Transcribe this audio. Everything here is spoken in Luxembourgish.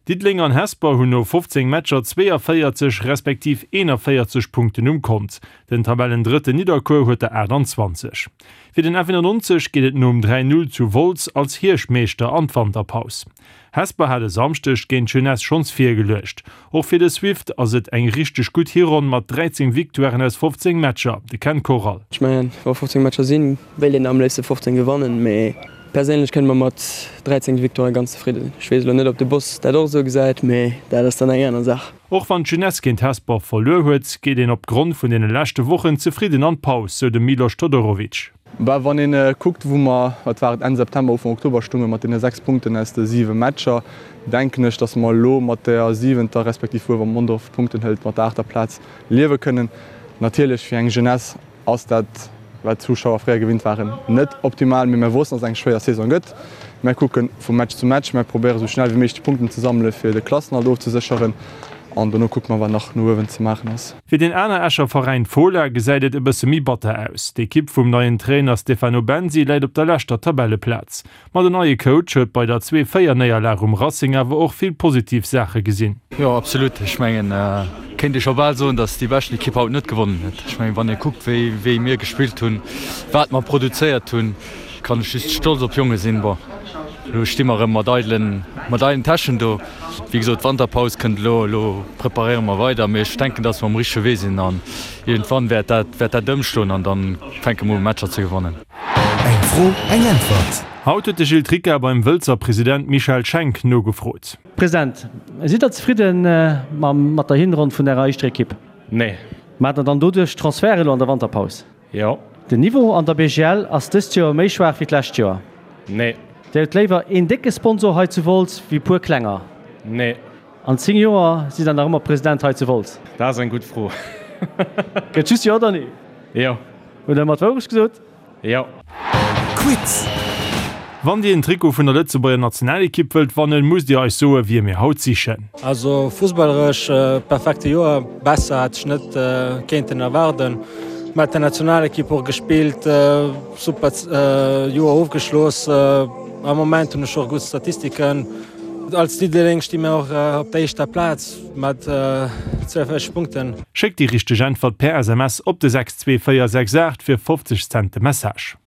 Diddeleng an Hesper hunn no 15 Matcher 42 respektiv 41 Punkten um Kont. Den Tabellendrëtten Nidderkuer huet der 28. Fir den F91 geet et nom 3, 0 zu Wolz als Hierschtmeeschter an d'Wanterpaus. Hesper hat e Samschdeg géint d'Jeunesse schonns virgeluecht. Och fir de Swift ass et eng richteg gutt Hironn mat 13 Victoiren aus 15 Matcher. De Ken Koral. Ech mengen, wa 15 Matcher sinn, wéilt een am léifste 15 gewannen, mee perséinlech kënne mer mat 13 Victoiren ganz zefridde sinn. Ech weess elo net, ob de Boss dat och esou gesäit, mee dat ass dann eng aner Saach. Och wann d'Jeunesse géint Hesper verluer huet, geet een op Grond vun deene leschte Wochen zefridden an d'Paus, sou de Milos Todorovic. Bah, wann een kuckt wou mer, wat war et, Enn September, Ufank Oktober stounge mat deene 6 Punkten aus de 7 Matcher, denken ech, datt mer elo mat der siwenter, respektiv wuel wa Mondorf Punkten hëlt, mat der aachter Plaz liewe kënnen. Natierlech fir eng Jeunesse ass dat, wat d'Zuschauer fréier gewinnt waren, net optimal, mee mer wossten, datt et eng schwéier Saison gëtt. Mer kucke vu Match zu Match, mer probéiere sou schnell wéi méiglech d'Punkten ze sammele fir de Klassenerhalt ofzesécheren an dono kucke mer wat nach no uewen ze maachen ass. Fir deen aner Escher Veräin Fola gesäit et e bësse méi batter aus. D'Ekipp vum neien Trainer Stefano Bensi läit op der leschter Tabelleplaz. Ma den neie Coach huet bei der 2, 4 Néierlag um Racing awer och vill positiv Saache gesinn. Jo absolut, ech mengen kéint ee scho bal soen, datt déi beschten Ekipp haut net gewonnen huet. Ech mengen wann ee kuckt wéi wéi mir gespillt hunn, wat mer produzéiert hunn, kann ech just stolz op d'Jonge sinn. Bon elo sti mer erëm mat eidelen mat eidelen Täschen do. Wéi gesot d'Wanterpaus kënnt elo, elo preparéiere mer weider, mee ech denken datt mer um richtege Wee sinn an iergendwann wäert dat wäert dat ëmschloen an dann fänke mer u Matcher ze gewannen. Eng Fro, eng Äntwert. Haut huet de Gilles Tricca beim Wëlzer President Michel Schenk nogefrot. President, sidd der zefridden mat der Hinronn vun ärer éischter Ekipp? Nee. Maacht der dann doduerch Transfert elo an der Wanterpaus? Jo. Den Niveau an der BGL ass dëst Joer méi schwaach wéi d'lescht Joer? Nee. Dir hutt léiwer een décke Sponsor hei zu Wolz wéi puer klenger? Nee. An 10 Joer sidd der nach ëmmer President hei zu Wolz? Dat ass eng gutt Fro. Gëtt just Jo oder Nee? Jo. Hutt Der mat Wourecht gesot? Jo. Quiz! Wann Dir en Trikot vun der Lëtzebuerger Nationalekipp wëllt wannen, musst Dir eis soe wie mir haut sichen. Also fussballeresch perfekte Joer, besser hätt ech net kéinten erwaarden. Mat der Nationalekipp och gespillt, super Joer ofgeschloss. Am Moment hunn ech och gutt Statistiken. Als Diddeleng sti mir och op der éischter Plaz mat 42 Punkten. Schéckt déi richteg Äntwert per SMS op de 62468 fir 50 Cent de Message.